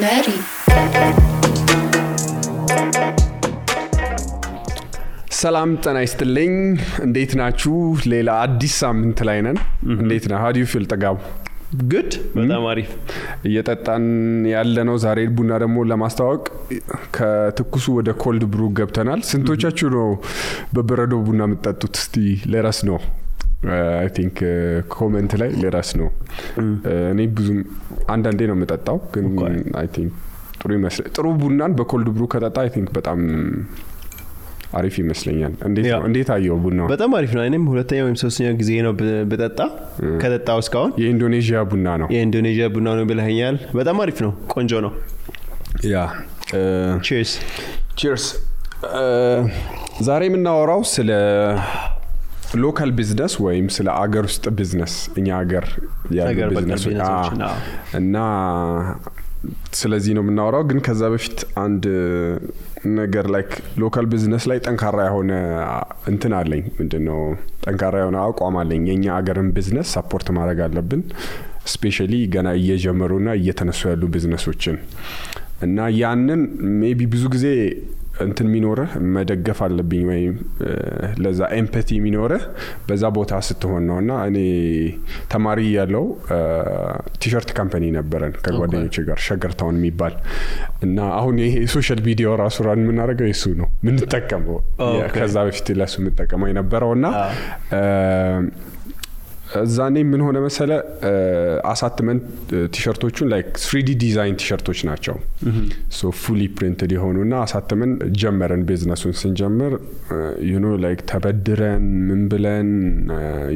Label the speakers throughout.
Speaker 1: Berry
Speaker 2: ሰላም ጤና ይስጥልኝ እንዴት ናችሁ ሌላ አዲስ ሳምንት ላይ ነን እንዴት ነው how do you feel ተጋቡ
Speaker 3: good በጣም አሪፍ
Speaker 2: እየጠጣን ያለነው ዛሬ ቡና ደግሞ ለማስተዋወቅ ከትኩሱ ወደ ኮልድ ብሩ ገብተናል ስንቶቻችሁ ነው በበረዶ ቡና የምትጠጡት እስቲ ለራስ ነው I think comment ላይ ለራስ ነው እኔ ብዙም አንዳንዴ ነው የምጠጣው ግን I think ጥሩ ይመስላል ጥሩ ቡናን በኮልድ ብሩ ከጠጣ I think በጣም አሪፍ ይመስለኛል እንዴት አየው ቡናው
Speaker 3: በጣም አሪፍ ነው እኔም ሁለተኛ ወይም ሶስተኛ ጊዜ ነው በጠጣ ከጠጣው እስካሁን
Speaker 2: የኢንዶኔዥያ ቡና ነው
Speaker 3: የኢንዶኔዥያ ቡና ነው ብለኸኛል በጣም አሪፍ ነው ቆንጆ ነው
Speaker 2: ያ
Speaker 3: cheers
Speaker 2: ዛሬ የምናወራው ስለ ሎካል ቢዝነስ ወይም ስለ አገር ውስጥ ቢዝነስ እኛ አገር ያለው ቢዝነስ እና ስለዚህ ነው የምናወራው ግን ከዛ በፊት አንድ ነገር ላይክ ሎካል ቢዝነስ ላይ ጠንካራ የሆነ እንትን አለኝ ምንድነው ጠንካራ የሆነ አቋም አለኝ የኛ አገርን ቢዝነስ ሰፖርት ማድረግ አለብን ስፔሻሊ ገና እየጀመሩና እየተነሱ ያሉ ቢዝነሶችን እና ያንን ሜቢ ብዙ ጊዜ እንትን ሚኖር መደገፍ አለብኝ ወይ ለዛ ኤምፓቲ ሚኖር በዛ ቦታ ስትሆን ነውና እኔ ተማሪ ያለው ቲሸርት ካምፓኒ ነበረን ከጓደኞቼ ጋር ሸገርታውን የሚባል እና አሁን ይሄ ሶሻል ሚዲያ ራሱ ራን ምናረጋው እሱ ነው ምን ተጠቀመው ከዛ በፊት ለሱ መጠቀመው የነበረውና ዛኔ ምን ሆነ መሰለ አሳትመንት ቲሸርቶቹን ላይክ 3D ዲዛይን ቲሸርቶች ናቸው ሶ ፉሊ ፕሪንትድ የሆኑና አሳትመን ጀመረን ቢዝነሱን ስንጀምር you know like ተበድረን ምን ብለን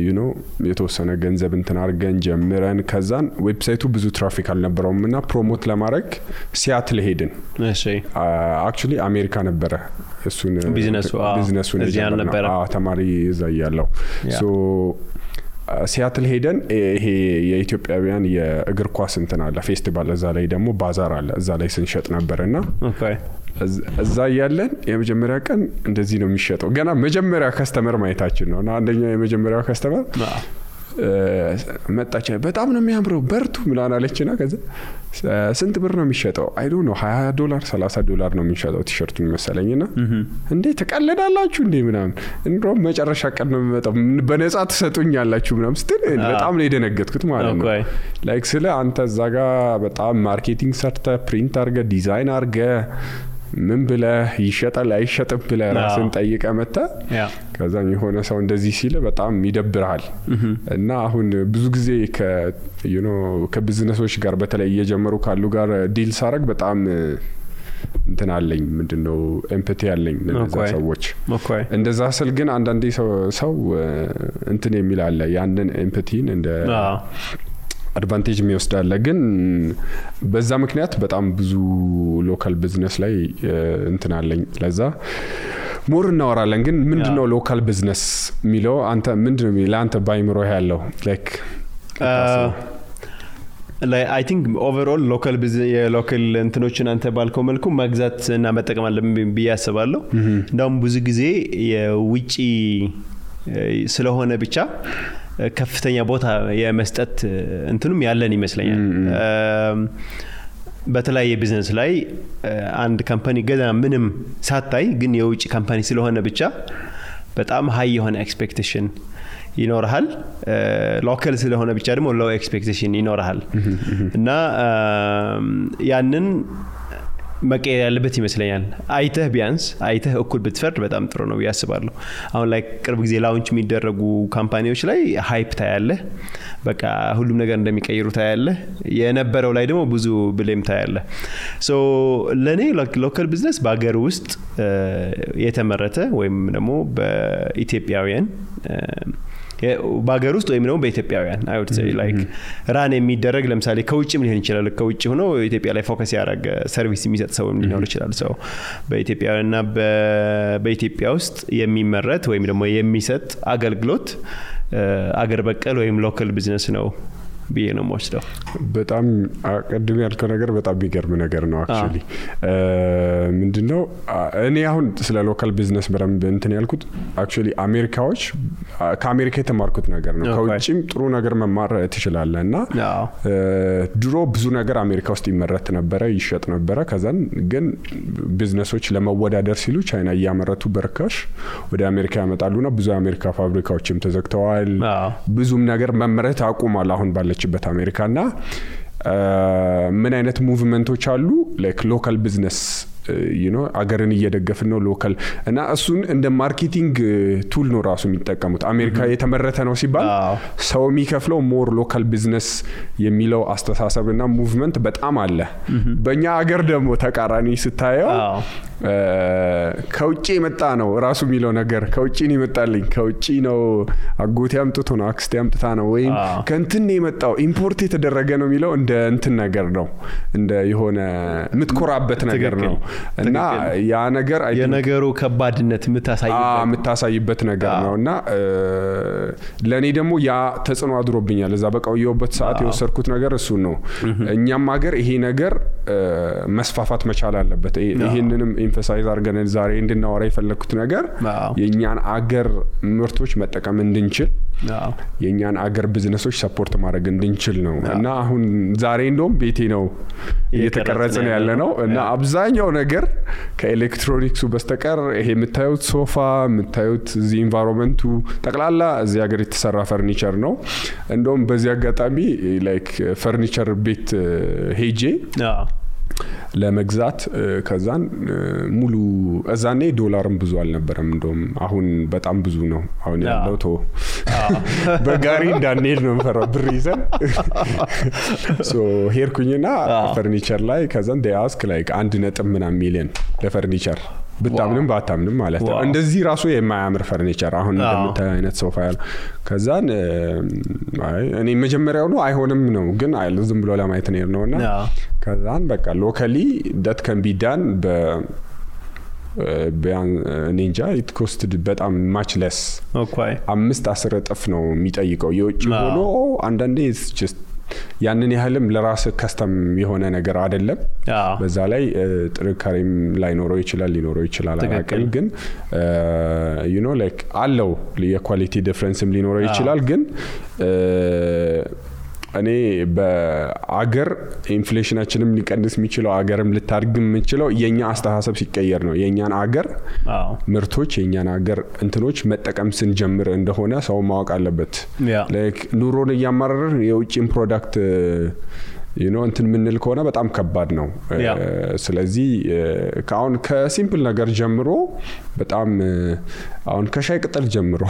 Speaker 2: you know የተወሰነ ገንዘብ እንትን አርገን ጀምረን ከዛን ዌብሳይቱ ብዙ ትራፊክ አልነበረውምና ፕሮሞት ለማድረግ ሲያትል ሄድን
Speaker 3: እሺ
Speaker 2: actually አሜሪካ ነበረ እሱን ቢዝነሱን
Speaker 3: እዚያ ነበር
Speaker 2: ተማሪ እዛ ያለው ሶ ሲያትል ሄደን ይሄ የኢትዮጵያውያን የእግር ኳስ እንትን አለ ፌስቲቫል እዛ ላይ ደግሞ ባዛር አለ እዛ ላይ ስንሸጥ ነበርና
Speaker 3: ኦኬ
Speaker 2: እዛ ያለን የመጀመሪያ ቀን እንደዚህ ነው የሚሸጠው ገና መጀመሪያ ከስተመር ማይታችን ነውና አንደኛው የመጀመሪያው ከስተመር መጣች በጣም ነው የሚያምረው በርቱ ምናምን አለችና ከዛ ስንት ብር ነው የሚሸጠው አይ ዶንት ኖ $20 $30 ነው የሚሸጠው ቲሸርቱን መሰለኝና እንዴ ተቀለዳላችሁ እንዴ ምናምን እንደውም መጨረሻ ቀን ነው የሚመጣው በነፃ ተሰጡኛላችሁ ምናምን ስትል በጣም ነው የደነገጥኩት ማለት ነው ላይክ ስለ አንተ እዛጋ በጣም ማርኬቲንግ ሰርተ ፕሪንት አርገ ዲዛይን አርገ ምን ብለ ይሸጣል አይሸጥም ብለ ራስን ጠይቀ መጣ ከዛ የሆነ ሰው እንደዚህ ሲል በጣም ይደብራል እና አሁን ብዙ ጊዜ you know ከቢዝነሶች ጋር በተለይ እየጀመሩ ካሉ ጋር ዲል ሳረግ በጣም እንትን አለኝ ምንድነው ኤምፓቲ አለኝ ለነዛ ሰዎች እንደዛ ስል ግን አንዳንዴ ሰው እንትን የሚል አለ ያንን ኤምፓቲን እንደ አድቫንቴጅ የሚወስዳለ ግን በዛ ምክንያት በጣም ብዙ ሎካል ቢዝነስ ላይ እንትን አለኝ ለዛ ሞር እናወራለን ግን ምንድነው ሎካል ቢዝነስ ሚለው አንተ ምንድነው ለአንተ ባይምሮ ያለው ላይክ
Speaker 3: I think overall local business local እንትኖችን አንተ ባልከው መልኩ መግዛት እና መጠቀም አለብን ብያስባለሁ እንደውም ብዙ ጊዜ የውጪ ስለሆነ ብቻ ከፍተኛ ቦታ የመስጠት እንትኑም ያለን ይመስለኛል በተለያየ ቢዝነስ ላይ አንድ ካምፓኒ ገና ምንም ሳታይ ግን የውጪ ካምፓኒ ስለሆነ ብቻ በጣም ሃይ የሆነ ኤክስፔክቴሽን ይኖርሃል ሎካል ስለሆነ ብቻ ደግሞ ሎው ኤክስፔክቴሽን ይኖርሃል እና ያንን መቀየር ያለበት ይመስለኛል አይተህ እኩል ብትፈርድ በጣም ጥሩ ነው ያስባለሁ አሁን ላይ ቅርብ ጊዜ ላውንች የሚደረጉ ካምፓኒዎች ላይ ሃይፕ ታያለህ በቃ ሁሉም ነገር እንደሚቀይሩ ታያለህ የነበረው ላይ ደግሞ ብዙ ብሌም ታያለህ ሶ ለኔ ሎካል ቢዝነስ በአገር ውስጥ የተመረተ ወይም ደግሞ በኢትዮጵያውያን ባገር ውስጥ ወይም ነው በኢትዮጵያውያን I would say like ራን የሚደረግ ለምሳሌ ከውጭም ሊሆን ይችላል ከውጭ ሆኖ ኢትዮጵያ ላይ ፎከስ ያደረገ ሰርቪስ የሚሰጥ ሰው ሊኖር ይችላል ሰው በኢትዮጵያውያንና በኢትዮጵያ ውስጥ የሚመረት ወይም ደግሞ የሚሰጥ አገልግሎት አገር በቀል ወይም ሎካል ቢዝነስ ነው ብዬ ነው የምወስደው።
Speaker 2: በጣም ቅድም ያልከው ነገር በጣም የሚገርም ነገር ነው አክቹሊ። ምንድነው እኔ አሁን ስለ ሎካል ቢዝነስ በደንብ እንትን ያልኩት አክቹሊ አሜሪካዎች ከአሜሪካ የተማርኩት ነገር ነው። ከውጭም ጥሩ ነገር መማር ትችላለህ እና ድሮ ብዙ ነገር አሜሪካ ውስጥ ይመረት ነበረ፣ ይሸጥ ነበረ። ከዛን ግን ቢዝነሶች ለመወዳደር ሲሉ ቻይና እያመረቱ በርካሽ ወደ አሜሪካ ያመጣሉና ብዙ አሜሪካ ፋብሪካዎችም ተዘግተዋል። ብዙም ነገር መመረት አቁሟል አሁን ባለችበት አሜሪካና ምን አይነት ሙቭመንቶች አሉ ላይክ ሎካል ቢዝነስ አገርን እየደገፍን ነው ሎካል እና እሱን እንደ ማርኬቲንግ ቱል ነው ራሱ የሚጠቀሙት። አሜሪካ የተመረተ ነው ሲባል ሰው የሚከፍለው ሞር ሎካል ቢዝነስ የሚለው አስተሳሰብና ሙቭመንት በጣም አለ። በእኛ አገር ደግሞ ተቃራኒ ስታየው ከውጪ የመጣ ነው ራሱ የሚለው ነገር ከውጪ ነው ይመጣልኝ፣ ከውጪ ነው አጎቴ አምጥቶ ነው አክስቴ አምጥታ ነው ወይም ከእንትን ነው የመጣው ኢምፖርት የተደረገ ነው የሚለው እንደ እንትን ነገር ነው፣ እንደ የሆነ የምትኮራበት ነገር ነው እና ያ ነገር
Speaker 3: የነገሩ ከባድነት
Speaker 2: የምታሳይበት ነገር ነውና ለኔ ደግሞ ያ ተጽዕኖ አድሮብኛል። እዛ በቃውየውበት ሰዓት የወሰድኩት ነገር እሱ ነው። እኛም ሀገር ይሄ ነገር መስፋፋት መቻል አለበት። ይሄንንም ኤምፋሳይዝ አድርገን ዛሬ እንድናወራ የፈለኩት ነገር የኛን አገር ምርቶች መጠቀም እንድንችል የኛን አገር ቢዝነሶች ሰፖርት ማድረግ እንድንችል ነው እና አሁን ዛሬ እንደውም ቤቴ ነው እየተቀረጸ ነው ያለ ነው እና አብዛኛው ነገር ከኤሌክትሮኒክሱ በስተቀር ይሄ የምታዩት ሶፋ የምታዩት እዚ ኢንቫይሮንመንቱ ጠቅላላ እዚህ ሀገር የተሰራ ፈርኒቸር ነው። እንደውም በዚህ አጋጣሚ ላይክ ፈርኒቸር ቤት ሄጄ ለመግዛት ከዛን ሙሉ እዛኔ ዶላርም ብዙ አልነበረም። እንደውም አሁን በጣም ብዙ ነው አሁን ያለው ቶ በጋሪ እንዳንሄድ ነው የምፈራው ብር ይዘን ሶ ሄድኩኝና ፈርኒቸር ላይ ከዛን ዲያስክ ላይክ 1.1 ሚሊዮን ለፈርኒቸር ብታምንም ባታምንም ማለት ነው። እንደዚህ ራሱ የማያምር ፈርኒቸር አሁን እንደምታየው አይነት ሶፋ ያለ ከዛን እኔ መጀመሪያው ነው አይሆንም ነው ግን ዝም ብሎ ለማየት ነውና ከዛን በቃ ሎካሊ that can be done ኒንጃ it costed በጣም much less 5-10 እጥፍ ነው የሚጠይቀው የውጭ ሆኖ አንዳንዴ it's just ያንን ያህልም ለራስ ከስተም የሆነ ነገር አይደለም። በዛ ላይ ጥንካሬም ሊኖረው ይችላል አላውቅም ግን like አለው የኳሊቲ ዲፈረንስም ሊኖረው ይችላል ግን እኔ በአገር ኢንፍሌሽናችንም ሊቀንስ የሚችለው አገርም ልታድግ የምችለው የኛ አስተሳሰብ ሲቀየር ነው። የኛን አገር ምርቶች የኛን አገር እንትኖች መጠቀም ስንጀምር እንደሆነ ሰው ማወቅ አለበት። ላይክ ኑሮን እያማረርን የውጭን ፕሮዳክት እንትን ምንል ከሆነ በጣም ከባድ ነው። ስለዚህ ካሁን ከሲምፕል ነገር ጀምሮ በጣም አሁን ከሻይ ቅጠል ጀምሮ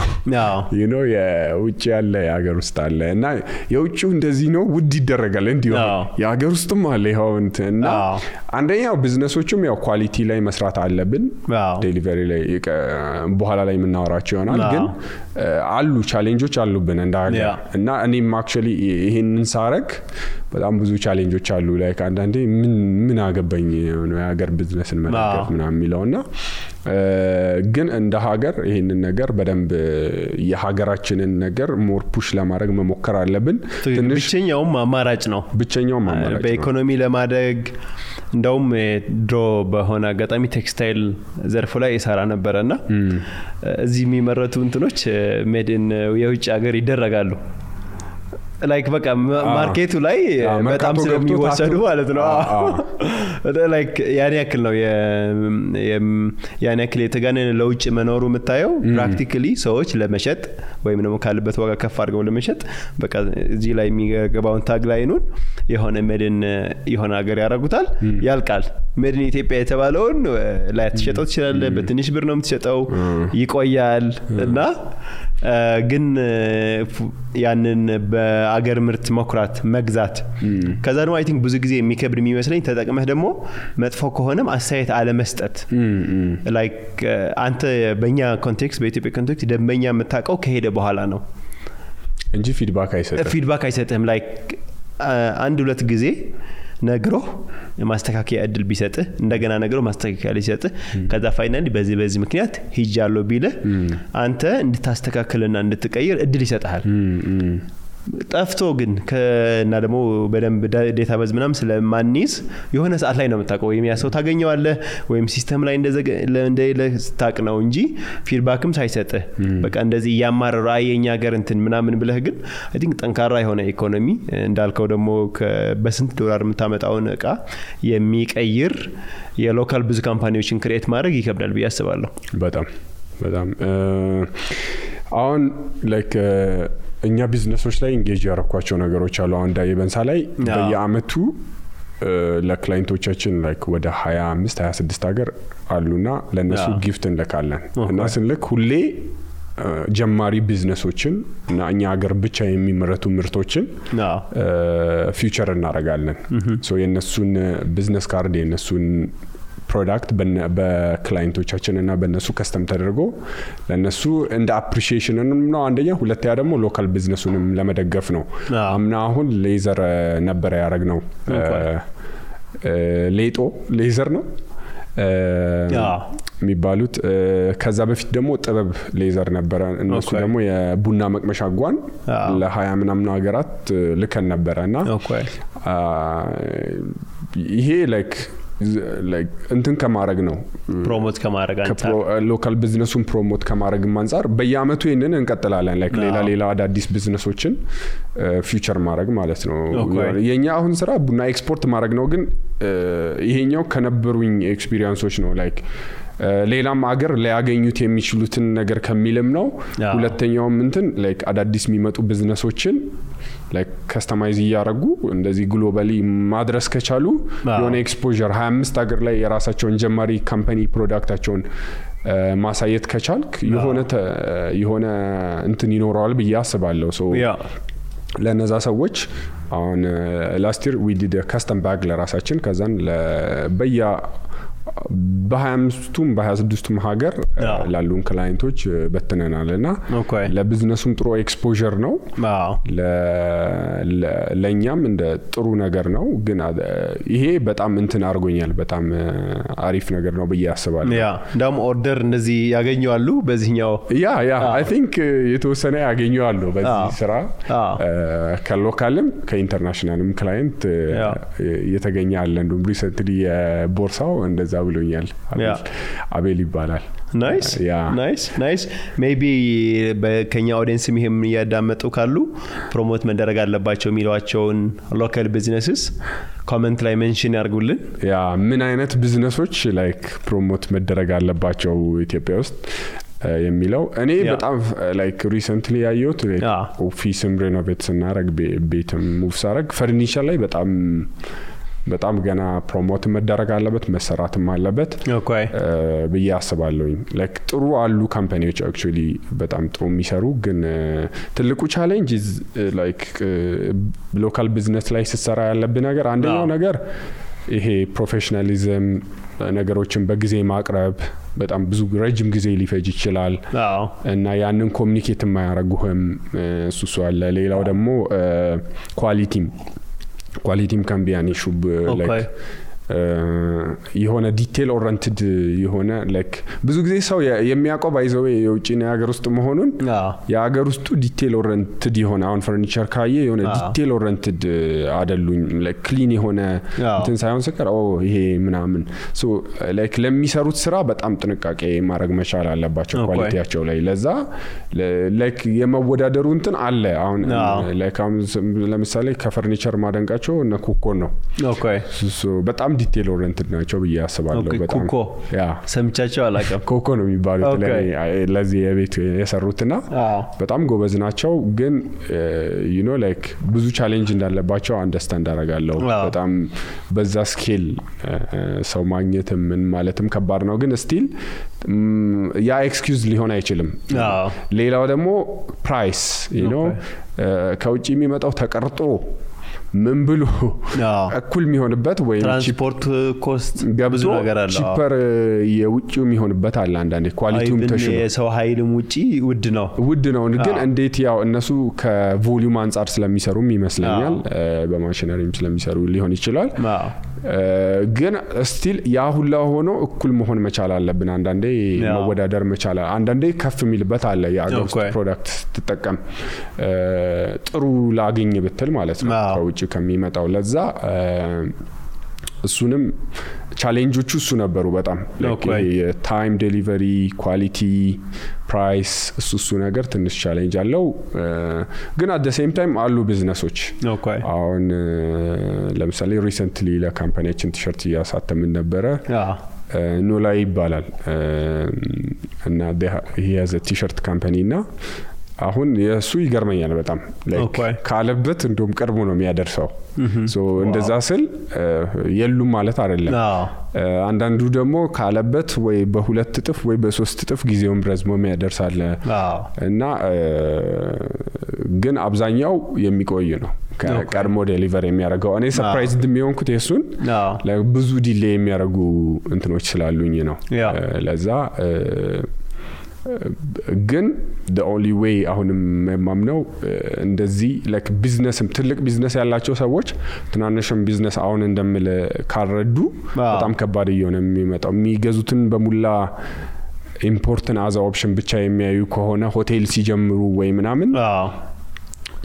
Speaker 2: የውጭ ያለ የሀገር ውስጥ አለ እና የውጭው እንደዚህ ነው ውድ ይደረጋል እንዲሁ የሀገር ውስጥም አለ ይኸው እና አንደኛው ቢዝነሶቹም ያው ኳሊቲ ላይ መስራት አለብን። ዴሊቨሪ ላይ በኋላ ላይ የምናወራቸው ይሆናል ግን አሉ ቻሌንጆች አሉብን እንደ ሀገር እና እኔም አክቹሊ ይሄንን ሳረግ በጣም ብዙ ቻሌንጆች አሉ። ላይክ አንዳንዴ ምን አገባኝ ነው የሀገር ቢዝነስን መደገፍ ምናምን የሚለውና ግን እንደ ሀገር ይሄንን ነገር በደንብ የሀገራችንን ነገር ሞር ፑሽ ለማድረግ መሞከር አለብን።
Speaker 3: ትንሽ ብቸኛውም አማራጭ ነው በኢኮኖሚ ለማደግ። እንደውም ድሮ በሆነ አጋጣሚ ቴክስታይል ዘርፉ ላይ ይሰራ ነበርና እዚህ የሚመረቱ እንትኖች ሜድን የውጭ ሀገር ይደረጋሉ ላይክ በቃ ማርኬቱ ላይ በጣም ስለሚወሰዱ ማለት ነው። ላይክ ያን ያክል ነው ያን ያክል የተጋነነ ለውጭ መኖሩ የምታየው ፕራክቲካሊ ሰዎች ለመሸጥ ወይም ደግሞ ካለበት ዋጋ ከፍ አድርገው ለመሸጥ በቃ እዚህ ላይ የሚገባውን ታግ ላይኑን የሆነ ሜድን የሆነ ሀገር ያደርጉታል ያልቃል። ሜድን ኢትዮጵያ የተባለውን ላይ ተሸጠው ትችላለህ በትንሽ ብር ነው የምትሸጠው ይቆያል እና ግን ያንን በአገር ምርት መኩራት መግዛት ከዛ ደግሞ አይ ቲንክ ብዙ ጊዜ የሚከብድ የሚመስለኝ ተጠቅመህ ደግሞ መጥፎ ከሆነም አስተያየት አለመስጠት ላይክ አንተ በእኛ ኮንቴክስት በኢትዮጵያ ኮንቴክስት ደንበኛ የምታውቀው ከሄደ በኋላ ነው
Speaker 2: እንጂ ፊድባክ አይሰጥህም ላይክ አንድ ሁለት ጊዜ ነግሮ ማስተካከያ እድል ቢሰጥህ እንደገና ነግሮ ማስተካከያ ሊሰጥህ ከዛ ፋይናሊ በዚህ ምክንያት ሂጃለሁ ቢለ አንተ እንድታስተካክልና እንድትቀይር እድል ይሰጣል።
Speaker 3: ጠፍቶ ግን እና ደግሞ በደንብ ዴታቤዝ ምናምን ስለማንይዝ የሆነ ሰዓት ላይ ነው የምታውቀው ወይም ያ ሰው ታገኘዋለህ ወይም ሲስተም ላይ እንደሌለ ስታውቅ ነው እንጂ ፊድባክም ሳይሰጥህ በቃ እንደዚህ እያማረሩ የኛ ሀገር እንትን ምናምን ብለህ ግን አይ ቲንክ ጠንካራ የሆነ ኢኮኖሚ እንዳልከው ደግሞ በስንት ዶላር የምታመጣውን እቃ የሚቀይር የሎካል ብዙ ካምፓኒዎችን ክሬት ማድረግ ይከብዳል ብዬ አስባለሁ።
Speaker 2: በጣም አሁን ላይክ እኛ ቢዝነሶች ላይ ኢንጌጅ ያረኳቸው ነገሮች አሉ። አሁን ዳይበንሳ ላይ በየአመቱ ለክላይንቶቻችን ላይክ ወደ 25 26 ሀገር አሉና ለነሱ ጊፍት እንልካለን እና ስንልክ ሁሌ ጀማሪ ቢዝነሶችን እና እኛ ሀገር ብቻ የሚመረቱ ምርቶችን ፊውቸር እናደርጋለን። ሶ የነሱን ቢዝነስ ካርድ የነሱን ፕሮዳክት በክላይንቶቻችን እና በነሱ ከስተም ተደርጎ ለነሱ እንደ አፕሪሺዬሽን ነው አንደኛ፣ ሁለተኛ ደግሞ ሎካል ቢዝነሱንም ለመደገፍ ነው። አምና አሁን ሌዘር ነበር ያደረግነው። ሌዘር ነው የሚባሉት። ከዛ በፊት ደግሞ ጥበብ ሌዘር ነበረ። እነሱ ደግሞ የቡና መቅመሻ ጓን ለ20 ምናምን ሀገራት ልከን ነበረና ይሄ ላይክ እንትን ከማድረግ ነው
Speaker 3: ፕሮሞት ከማድረግ አንፃር
Speaker 2: ሎካል ቢዝነሱን ፕሮሞት ከማድረግ አንፃር በየአመቱ ይሄንን እንቀጥላለን። ላይክ ሌላ አዳዲስ ቢዝነሶችን ፊውቸር ማድረግ ማለት ነው። የኛ አሁን ስራ ቡና ኤክስፖርት ማድረግ ነው። ግን ይሄኛው ከነበሩኝ ኤክስፒሪየንሶች ነው። ላይክ ሌላም አገር ሊያገኙት የሚችሉትን ነገር ከሚልም ነው። ሁለተኛውም እንትን ላይክ አዳዲስ የሚመጡ ቢዝነሶችን ላይክ ከስተማይዝ ያያረጉ እንደዚህ ግሎባሊ ማድረስ ከቻሉ የሆነ ኤክስፖዠር 25 ሀገር ላይ የራሳቸውን ጀማሪ ካምፓኒ ፕሮዳክታቸውን ማሳየት ከቻልክ የሆነ እንትን ይኖራል ብዬ አስባለሁ። ሶ ለነዛ ሰዎች አሁን ላስት ይር ዊ ዲድ ካስተም ባግ ለራሳችን ከዛን በ25ቱም በ26ቱም ሀገር ላሉን ክላይንቶች በትነናልና ለቢዝነሱም ጥሩ ኤክስፖዠር ነው። ለኛም እንደ ጥሩ ነገር ነው። ግን ይሄ በጣም እንትን አርጎኛል። በጣም አሪፍ ነገር ነው ብዬ አስባለሁ።
Speaker 3: እንደውም ኦርደር እንደዚህ ያገኙአሉ በዚህኛው
Speaker 2: አይ ቲንክ የተወሰነ ያገኙአሉ በዚህ ስራ ከሎካልም ከኢንተርናሽናልም ክላይንት የተገኘ አለ። እንደውም ሪሰንትሊ የቦርሳው እንደዛ ብሎኛል። አቤል ይባላል። ናይስ ሜቢ በከኛ ኦዲየንስ ይሄም ያዳመጡ ካሉ ፕሮሞት መደረግ አለባቸው የሚሏቸውን ሎካል ቢዝነስስ ኮሜንት ላይ ሜንሽን ያርጉልን። ምን አይነት ቢዝነሶች ላይክ ፕሮሞት መደረግ አለባቸው ኢትዮጵያ ውስጥ የሚለው እኔ በጣም ላይክ ሪሰንትሊ ያየሁት ኦፊስም ሬኖቬት ስናረግ ቤትም ሙቭ ሳረግ ፈርኒቸር ላይ በጣም ገና ፕሮሞት መደረግ አለበት መሰራትም አለበት ብዬ አስባለሁኝ። ላይክ ጥሩ አሉ ካምፓኒዎች አክቹአሊ በጣም ጥሩ የሚሰሩ ግን ትልቁ ቻሌንጅ ላይክ ሎካል ቢዝነስ ላይ ሲሰራ ያለብን ነገር አንደኛው ነገር ይሄ ፕሮፌሽናሊዝም ነገሮችን በጊዜ ማቅረብ በጣም ብዙ ረጅም ጊዜ ሊፈጅ ይችላል እና ያንን ኮሚኒኬት የማያረጉህም እሱ አለ። ሌላው ደግሞ ኳሊቲም can be an issue like የሆነ ዲቴል ኦሪየንትድ የሆነ ላይክ ብዙ ጊዜ ሰው የሚያቆብ አይዘው የውጪ ነው ያገር ውስጥ መሆኑን ያገር ውስጡ ዲቴል ኦሪየንትድ የሆነ አሁን ፈርኒቸር ካየ የሆነ ዲቴል ኦሪየንትድ አይደሉኝ ላይክ ክሊን የሆነ እንትን ሳይሆን ሰከር ይሄ ምናምን ሶ ላይክ ለሚሰሩት ስራ በጣም ጥንቃቄ ማድረግ መቻል አለባቸው ኳሊቲያቸው ላይ። ለዛ ላይክ የመወዳደሩ እንትን አለ። አሁን ላይክ ለምሳሌ ከፈርኒቸር ማደንቃቸው እነ ኮኮን ነው ሶ በጣም ዲቴል ኦሪየንትድ ናቸው ብዬ አስባለሁ። በጣም
Speaker 3: ሰምቻቸው አላቀም
Speaker 2: ኮኮ ነው የሚባሉት ለዚህ የቤት የሰሩትና በጣም ጎበዝ ናቸው። ግን you know like ብዙ ቻሌንጅ እንዳለባቸው አንደርስታንድ አደርጋለሁ። በጣም በዛ ስኬል ሰው ማግኘት ምን ማለትም ከባድ ነው። ግን ስቲል ያ ኤክስኪውዝ ሊሆን አይችልም። ሌላው ደግሞ ፕራይስ you know ከውጪ የሚመጣው ተቀርጦ ምን ብሎ እኩል የሚሆንበት ወይ
Speaker 3: ትራንስፖርት ኮስት ብዙ ነገር አለ።
Speaker 2: ቺፐር የውጪው የሚሆንበት አለ። አንዳንዴ ኳሊቲውም ተሽሎ
Speaker 3: የሰው ኃይልም ውጪ ውድ ነው።
Speaker 2: ግን እንዴት ያው እነሱ ከቮሊዩም አንፃር ስለሚሰሩም ይመስለኛል በማሽነሪም ስለሚሰሩ ሊሆን ይችላል። ግን ስቲል ያ ሁላ ሆኖ እኩል መሆን መቻል አለብን። አንዳንዴ መወዳደር መቻል አንዳንዴ ከፍ የሚልበት አለ። የአገር ውስጥ ፕሮዳክት ስትጠቀም ጥሩ ላገኝ ብትል ማለት ነው ከውጭ ከሚመጣው ለዛ እሱንም ቻሌንጆቹ እሱ ነበሩ በጣም ታይም ዴሊቨሪ ኳሊቲ ፕራይስ እሱ ነገር ትንሽ ቻሌንጅ አለው። ግን አት ዘ ሴም ታይም አሉ ቢዝነሶች አሁን ለምሳሌ ሪሰንትሊ ለካምፓኒያችን ቲሸርት እያሳተምን ነበረ ኖላ ይባላል እና ይሄ ያዘ ቲሸርት ካምፓኒ እና አሁን የሱ ይገርመኛል በጣም ላይክ ካለበት እንደውም ቀርቦ ነው የሚያደርሰው ሶ እንደዛ ስል የሉም ማለት አይደለም። አንዳንዱ ደግሞ ካለበት ወይ በሁለት እጥፍ ወይ በሶስት እጥፍ ጊዜውን ረዝሞ የሚያደርሳል እና ግን አብዛኛው የሚቆይ ነው ቀድሞ ዴሊቨር የሚያደርገው። እኔ ሰርፕራይዝድ የሚሆንኩት የሱን ብዙ ዲሌይ የሚያደርጉ እንትኖች ስላሉኝ ነው ለዛ ግን the only way አሁንም የማምነው እንደዚህ like ቢዝነስም ትልቅ ቢዝነስ ያላቸው ሰዎች ትናንሽም ቢዝነስ አሁን እንደምል ካረዱ በጣም ከባድ እየሆነ የሚመጣው የሚገዙትን በሙላ ኢምፖርትን አዛ ኦፕሽን ብቻ የሚያዩ ከሆነ ሆቴል ሲጀምሩ ወይ ምናምን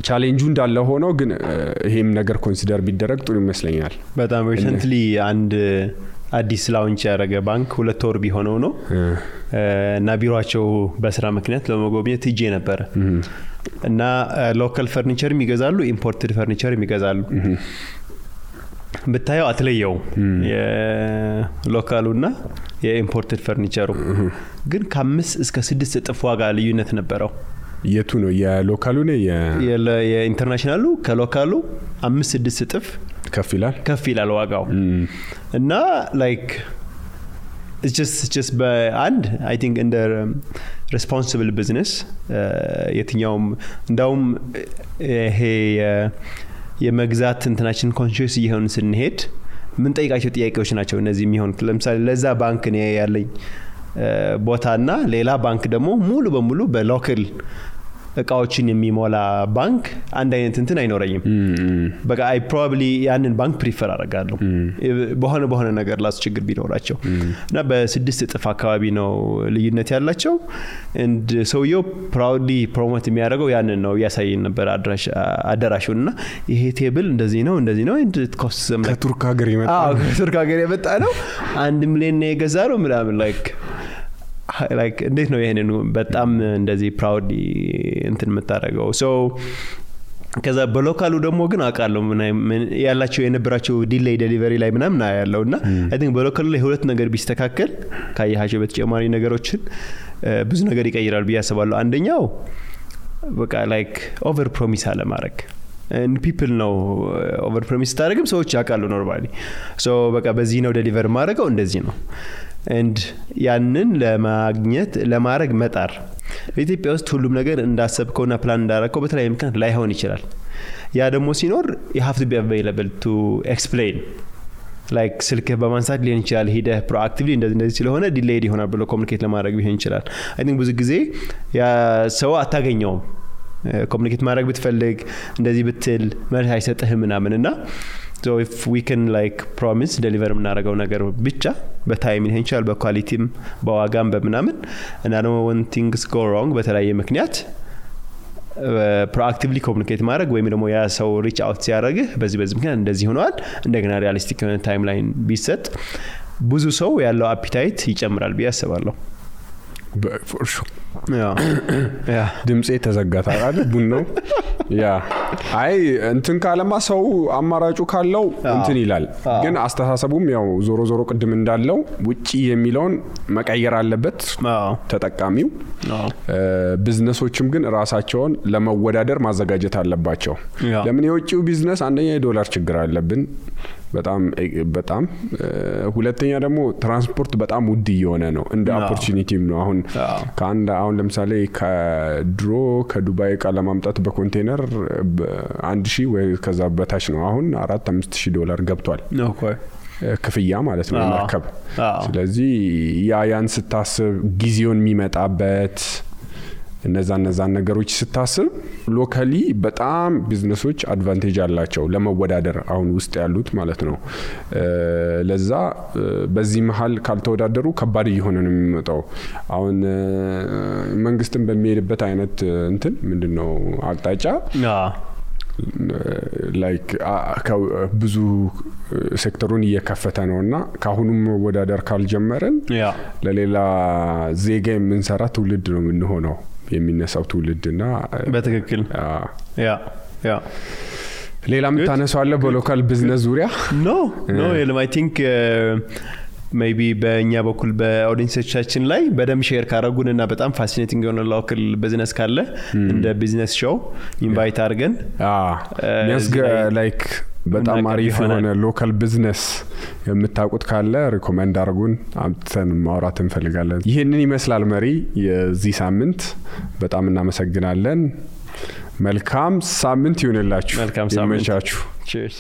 Speaker 2: ቻሌንጁ እንዳለ ሆኖ ግን ይሄም ነገር ኮንሲደር ቢደረግ ጥሩ ይመስለኛል።
Speaker 3: በጣም ሪሰንትሊ አንድ አዲስ ላውንች ያደረገ ባንክ 2 ወር ቢሆነው ነው እና ቢሮአቸው በስራ ምክንያት ለመጎብኘት ሄጄ ነበር እና ሎካል ፈርኒቸር የሚገዛሉ ኢምፖርትድ ፈርኒቸር የሚገዛሉ ብታየው አትለየው የሎካሉና የኢምፖርትድ ፈርኒቸሩ ግን ከ5 እስከ 6 እጥፍ ዋጋ ልዩነት ነበረው።
Speaker 2: የቱ ነው የሎካሉ ነው
Speaker 3: የኢንተርናሽናሉ ከሎካሉ 5-6 እጥፍ ከፍ ይላል ዋጋው እና like it's just በአንድ I think in the responsible business የትኛውም እንዳውም ይሄ የመግዛት እንትናችን ኮንሺየስ ይሆን ስንሄድ ምን ጠይቃቸው ጥያቄዎች ናቸው እነዚህ የሚሆኑት። ለምሳሌ ለዛ ባንክ ነው ያለኝ ቦታና ሌላ ባንክ ደግሞ ሙሉ በሙሉ በሎካል እቃዎችን የሚሞላ ባንክ አንድ አይነት እንትን አይኖርኝም። በቃ I probably ያንን ባንክ ፕሪፈር አደርጋለሁ በሆነ ነገር ላስቸግር ቢኖራቸው እና በ6 እጥፍ አካባቢ ነው ልዩነት ያላቸው and ሰውየው proudly promote የሚያደርገው ያንን ነው ያሳየን ነበር አዳራሹና ይሄ ቴብል እንደዚህ ነው and it costs them
Speaker 2: ከቱርክ ሀገር
Speaker 3: የመጣ ነው 1 ሚሊዮን ነው የገዛው ምናምን like እንዴት ነው ይሄንን በጣም እንደዚህ ፕራውድ እንትን መታረገው ሶ ከዛ በሎካሉ ደግሞ ግን አቃለው ምን ያላቸው የነበራቸው ዲሌይ ዴሊቨሪ ላይ ምናምን ያለውና I think በሎካሉ ላይ ሁለት ነገር ቢስተካከል ካያቸው በተጨማሪ ነገሮችን ብዙ ነገር ይቀይራል ብዬ አስባለሁ። አንደኛው በቃ like over promise አለ ማድረግ and people know over promise ታደርግም ሰዎች ያቃሉ ኖርማሊ ሶ በቃ በዚህ ነው ዴሊቨር ማድረገው እንደዚህ ነው and ያንን ለማድረግ መጣር በኢትዮጵያ ውስጥ ሁሉም ነገር እንዳሰብከውና ፕላን እንዳረከው በተለይ ምክንያት ላይሆን ይችላል። ያ ደግሞ ሲኖር you have to be available to explain like ስልክ በማንሳት ሊሆን ይችላል ሄደ proactively እንደዚህ ስለሆነ ዲሌይድ ይሆናል ብሎ ኮሙኒኬት ለማድረግ ቢሆን ይችላል። I think ብዙ ጊዜ ያ ሰው አታገኘውም ኮሙኒኬት ማድረግ ብትፈልግ እንደዚህ ብትል መልስ አይሰጥህም ምናምንና so if we can like promise deliver ምናረጋው ነገር ብቻ በታይም ሊሆን ይችላል በኳሊቲም በዋጋም በምናምን እና ደግሞ when things go wrong በተለያየ ምክንያት proactively communicate ማድረግ ወይም ደግሞ ያ ሰው reach out ሲያደርግህ በዚህ ምክንያት እንደዚህ ሆኗል እንደገና ሪያሊስቲክ የሆነ ታይምላይን ቢሰጥ ብዙ ሰው ያለው አፒታይት ይጨምራል ብዬ አስባለሁ።
Speaker 2: for sure ያ ድምጼ ተዘጋታ አይደል ቡናው ያ አይ እንትን ካለማ ሰው አማራጩ ካለው እንትን ይላል ግን አስተሳሰቡም ያው ዞሮ ቅድም እንዳለው ውጪ የሚለውን መቀየር አለበት ተጠቃሚው። ቢዝነሶችም ግን ራሳቸውን ለመወዳደር ማዘጋጀት አለባቸው። ለምን የውጪው ቢዝነስ አንደኛ የዶላር ችግር አለብን በጣም ሁለተኛ ደግሞ ትራንስፖርት በጣም ውድ እየሆነ ነው እንደ ኦፖርቹኒቲም ነው። አሁን ለምሳሌ ከድሮ ከዱባይ ዕቃ ለማምጣት በኮንቴነር 1000 ወይ ከዛ በታች ነው አሁን $4-5,000 ገብቷል ክፍያ ማለት ነው ማከብ። ስለዚህ ያን ስታስብ ጊዜውን የሚመጣበት እነዛን ነገሮች ስታስብ ሎካሊ በጣም ቢዝነሶች አድቫንቴጅ አላቸው ለመወዳደር አሁን ውስጥ ያሉት ማለት ነው። ለዛ በዚህ መሃል ካልተወዳደሩ ከባድ እየሆነ ነው የሚመጣው። አሁን መንግስትን በሚሄድበት አይነት እንትን ምንድነው አቅጣጫ ላይክ ብዙ ሴክተሩን እየከፈተ ነውና ካሁኑም መወዳደር ካልጀመረን ለሌላ ዜጋ የምንሰራ ትውልድ ነው የምንሆነው የሚነሳው ትውልድና
Speaker 3: በትክክል
Speaker 2: ሌላ ምታነሳው አለ በሎካል ቢዝነስ ዙሪያ?
Speaker 3: ኖ አይ ቲንክ ሜቢ በእኛ በኩል በኦዲየንሶቻችን ላይ በደም ሼር ካረጉንና በጣም ፋሲኔቲንግ የሆነ ሎካል ቢዝነስ ካለ እንደ ቢዝነስ ሾው ኢንቫይት አድርገን
Speaker 2: ላይክ በጣም አሪፍ የሆነ ሎካል ቢዝነስ የምታውቁት ካለ ሪኮመንድ አድርጉን አምጥተን ማውራት እንፈልጋለን። ይሄንን ይመስላል መሪ የዚህ ሳምንት። በጣም እናመሰግናለን። መልካም ሳምንት ይሁንላችሁ።
Speaker 3: መልካም ሳምንት።
Speaker 2: ይመቻችሁ።
Speaker 3: ቺርስ።